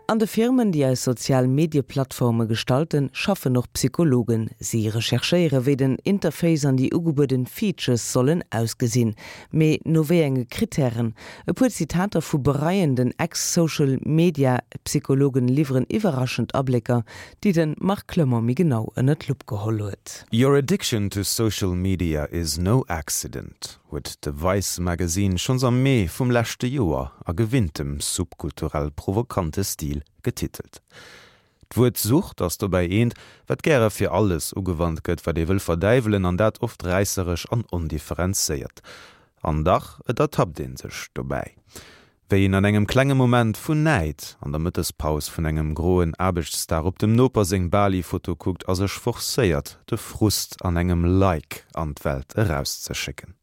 An de Firmen, déi eis sozial Medieplattforme gestalten, schaffen och Psychologen. Si recherchéiere wéi den Interface an déi ugebueden Features sollen ausgesinn. Mee no wéi enge Krittären? E puer Zitater vu bereienden Ex-Social Media Psychologen liwweren iwwerraschend Ablécker, déi de Marc Clement méi genau ënner d'Lupp geholl huet. Your addiction to social media is no accident, huet de Vice Magazine schonns am Mee vum leschte Joer a gewinntem subkulturell provokante Stil getitelt. D'Wuert Sucht ass dobäi eent, wat gäre fir alles ugewannt gëtt, wat ee wëll verdäiwelen, an dat oft räisseresch an ondifferenzéiert. An dach, et ertappt ee sech dobäi, wéi een an engem klenge Moment vun Näid an der Mëttespaus vun engem groen Aarbechtsdag op dem Noper seng Bali-Foto kuckt a sech forcéiert, de Frust an engem Like an d'Welt erauszeschécken.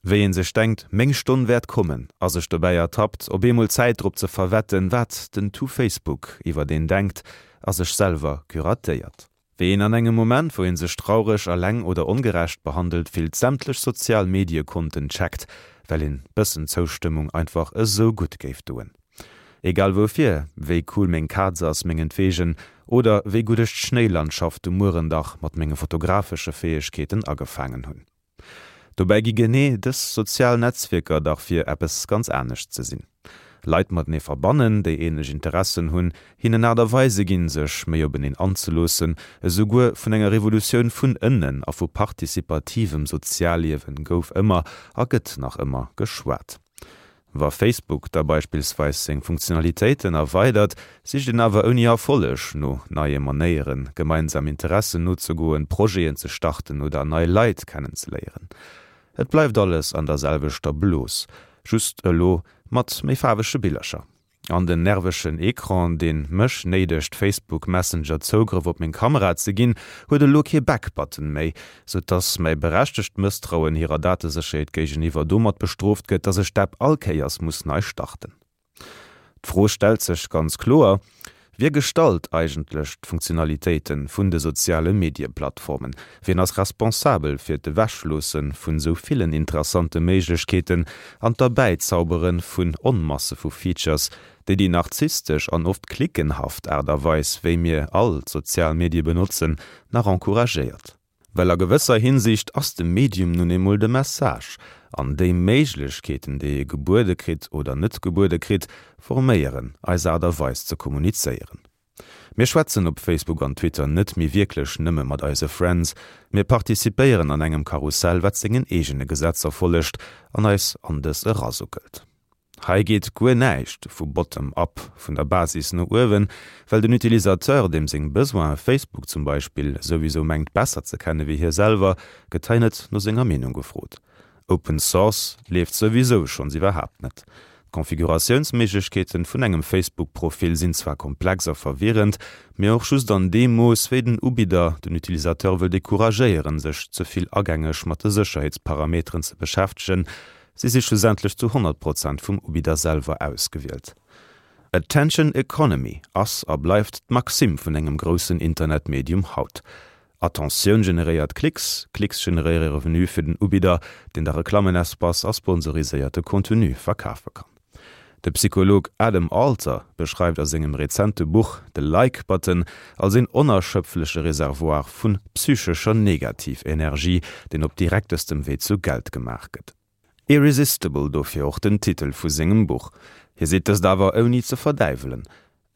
Wéi een sech denkt, meng Stonn wäert kommen, a sech dobäi ertappt, op eemol Zäit drop ze verwetten, wat den To Facebook iwwert een denkt, a sech selwer curatéiert. Wéi een an engem Moment, wou een sech traureg, eleng oder ongerecht behandelt fillt, sämtlech sozial Mediekonten checkt, well een bëssen Zoustëmmung einfach esou gutt géif doen. Egal woufir, wéi cool meng Kaz ass, mengenntwegen, oder wéi gutt ech d'Schnéilandschaft um Muerendach mat menge fotografesche Fäegkeeten agefaangen hunn. Dobäi gi genee dës sozial Netzwierker dach fir eppes ganz anescht ze sinn. Leit matenee verbannen, déi ähnlech Interessen hunn, hinnen Aart a Weise ginn, sech méi openeen anzeloossen. Esouguer vun enger Revolutioun vun ënnen a vu partizipativem Sozialliewen gouf ëmmer a gëtt nach ëmmer geschwat. Wa Facebook da beispillsweis seng Funktionalitéiten erweidert, sicht een awer ouni Erfolleg no neie Manéieren, gemeinsam Interessen nozegoen, Projeten ze starten oder nei Leit kennenzeléieren. Et bleift alles an der selwechter Blos, just elo mat méi faarwege Billercher. An den nervegen Ecran, deen mech néidegt Facebook Messenger Zougrëff op meng Kamera ze ginn, huet elo kee Back Button méi, sou dass mäi berechtegt Mësstrauen hirer Datesécherheet géigeniwwer domat bestrooft gëtt, dass ech d'App all Kéiers muss nei starten. D'Fro stellt sech ganz kloer, Wie gestalt eigentlech d'Funktionalitéite vun de soziale Medieplattformen? Wien ass responsabel fir d'Ewechloosse vun esou villen interessante Méiglechkeeten an d'Erbäizaubere vun Onmasse vu Features, déi déi narzisstesch an oft cliquenhaft Aart a Weis, wéi mir all d'sozial Medie benotzen, nach encouragéiert? Well a gewësser Hinsicht ass de Medium nun eemol de Message, an déi Méiglechkeeten, déi ee gebuede kritt oder net gebuede kritt, forméieren eis Aart a Weis ze kommunizéieren. Mir schwätzen op Facebook an Twitter net méi wierklech nëmme mat eise Friends, mir participéieren an engem Karussell, wat sengen eegene Gesetzer follegt an eis an dës erasuckelt. Hei geet guer näischt vu bottom up, vun der Basis no uewen, well den Utilisateur, deem seng Besoine Facebook zum Beispill souwisou mengt besser ze kenne wéi hie selwer, gëtt hei net no senger Meenung gefrot. Open Source leeft souwisou schonns iwwerhaapt net. D'Konfiguratiounsméiglechkeeten vun engem Facebook-Profil sinn zwar komplex a verwirrend, mee och just an deem Mooss, wéi den Ubidder den Utilisateur wëll decouragéieren, sech ze vill agängeg mat de Sécherheetsparameteren ze beschäftegen, Si si schlussendlech zu 100 Prozent vum Ubidder selwer ausgewielt. Attention Economy ass a bleift d'Maxime vun engem groussen Internetmedium haut. Attentioun generéiert Klicks, Klicks generéiere Revenu fir den Ubidder, deen da Reklammenespace a sponsoriséierte Contenu verkafe kann. De Psycholog Adam Alter beschreift a sengem rezente Buch de Like Button als een onerschöpfleche Reservoir vun psychescher Negativenergie, deen op direktestem Wee zu Geld gemaach gëtt. Irresistible, dofir och den Titel vu sengem Buch. Hie seet dëst awer ouni ze verdäiwelen.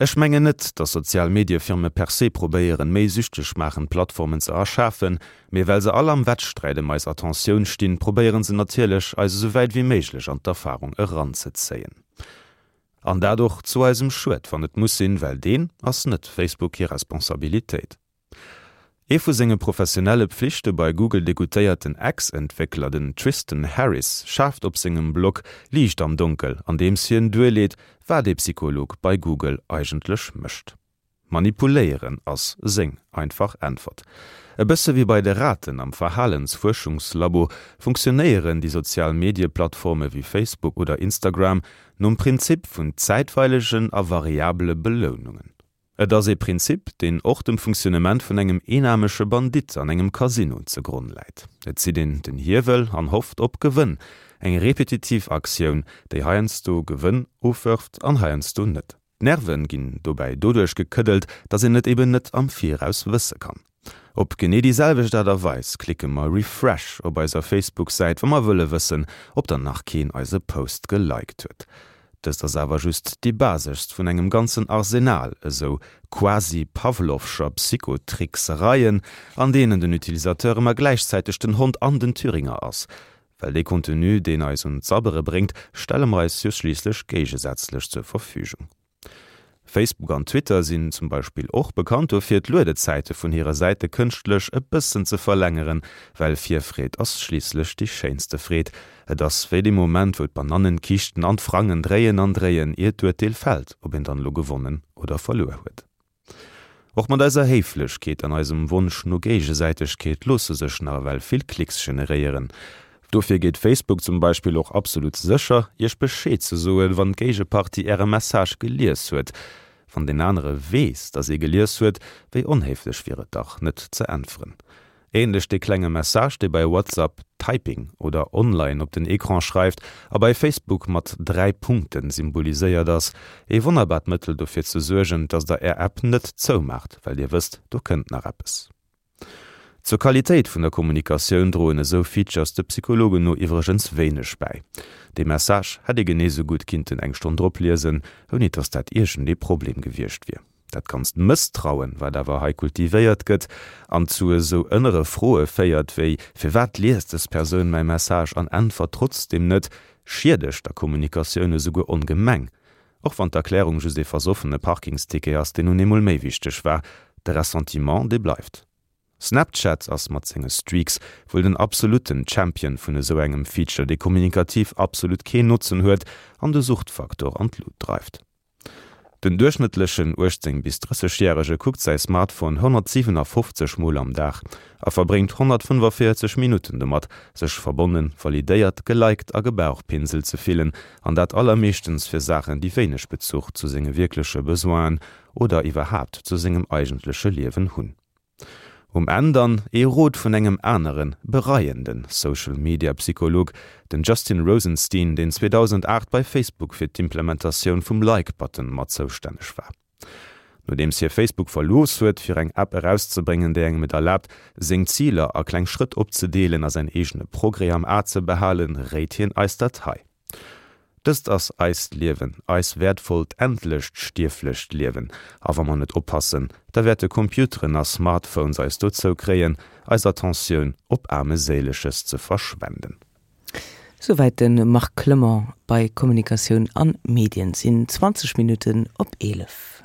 Ech mengen net, datt sozial Mediefirme per se probéieren, méi süchteg maachend Plattformen ze erschafen, mee well se all am Wettsträit ëm eis Attentioun stinn, probéieren se natierlech, eis esou wäit wéi méiglech an d'Erfarung eranzezéien. An dat och zu eisem Schued, wann et muss sinn, well deen ass net Facebook hir Responsabilitéit. Ee vu senge professionelle Pflichte bei Google degoutéierten Ex-Entwéckler, den Tristan Harris, schaaft op sengem Blog Liicht am Donkel, andeems hien duerleet, wat ee Psycholog bei Google eigentlech mécht. Manipuléieren ass seng einfach Äntwert. E bësse wéi bei de Raten am Verhalensfuerschungslabo funktionéieren déi sozial Medieplattforme wéi Facebook oder Instagram nom Prinzip vun zäitweilegen a variabele Belounungen. Et ass ee Prinzip, deen och dem Funktionnement vun engem eenaarmege Bandit an engem Casino ze Gronn läit. Et zitt een den Hiewel an hofft op Gewënn, eng repetitiv Aktioun, déi heiansdo Gewënn ofwërft an heiansdo net. D'Nerven ginn dobäi doduerch gekëddelt, dass een et eben net am Viraus wësse kann. Op genee déi selwecht Aart a Weis klicke mer Refresh op eiser Facebook-Säit, wa mer wëlle wëssen, ob dann nach keen eise Post geliked huet. Dëst ass awer just déi baseschst vun engem ganzen Arsenal esou quasi-Pavlovscher Psychotricksereien, an deenen den Utilisateur ëmmer gläichzäiteg den Hond an den Thüringer ass. Well dee Contenu, deen eis un d'Sabbere bréngt, stelle mer eis jo schliisslech géigesätzlech zur Verfügung. Facebook an Twitter sinn zum Beispill och bekannt dofir, d'Luedezäite vun hire Säite kënschtlech e bëssen ze verlängeren, well Virfreed ass schliisslech déi schéinste Freed. Et ass wéi dee Moment, wou d'Banannenkiischten an d'Frangen dréien an dréien, ier d'Urteel fält, ob een dann elo gewonnen oder verluer huet. Och mat eiser Héiflechkeet an eisem Wonsch no Géigesäitegkeet loosse sech nach ewell vill Klicks generéieren. Dofir geet Facebook zum Beispill och absolut sécher, iech Bescheed ze soen, wann d'Géigepartie äre Message gelies huet. Wann deen anere weess, dass ee gelies huet, wéi onhéiflech wier et dach, net ze äntweren. Ähnlech dee klenge Message, dee bei WhatsApp Typing oder Online op den Ecran schreift a bei Facebook mat 3 Punkten symboliséiert ass. Ee wonnerbart Mëttel dofir ze suergen, dass der är App net zoumaacht, well dir wësst, do kënnt nach eppes. Zur Qualitéit vun der Kommunikatioun droen esou Features de Psychologen no iwwregens wéineg bäi. Dee Message hätt ee genee sou gutt kinnten eng Stonn drop liesen, ouni dass dat iergendee Problem gewiescht wier. Dat ganzt Mësstrauen, wat awer hei kultivéiert gëtt an zu esou ënnere Froe féiert wéi, Firwat liest dës Persoun mäi Message an äntwert trotzdeem net, schiedegt der Kommunikatioun esouguer ongemeng. Och wann d'Erklärung just ee versoffene Parkingsticket ass, deen nun eemol méi wichteg war, de Ressentiment, dee bleift. Snapchat ass mat senge Streaks wuel den absolutten Champion vun esou engem Feature, dee kommunikativ absolut keen Notzen huet an de Suchtfaktor an d'Lut dreift. Den duerchschnëttlechen 18 bis 30 Järege kuckt säi Smartphone 157 Mol am Dag a verbréngt 145 Minutten domat, sech verbonnen, validéiert, geliked a gebauchpinselt ze fillen, an dat allermeeschtens fir Saachen, déi wéineg Bezuch zu senge wierkleche Besoinen oder iwwerhaapt zu sengem eigentleche Liewen hunn. Um Enn dann ee Rot vun engem aneren, bereienden Social-Media-Psycholog, den Justin Rosenstein, deen 2008 bei Facebook fir d'Implementatioun vum Like-Button mat zoustänneg war. Nodeems hie Facebook verlooss huet, fir eng App erauszebréngen, déi engem et erlaabt, seng Ziler a kleng Schrëtt opzedeelen a säin eegene Progrès am A ze behalen, réit hien eis dat hei. Dëst ass eist Liewen, eis wäertvollt, endlecht, stierflecht Liewen. A wa mer net oppassen, da wäerte Computeren a Smartphones eis dozou kréien, eis Attentioun op Aarmeséileges ze verschwenden. Souwäit de Marc Clement bei Kommunikatioun an Medien. Sinn 20 Minutten op 11.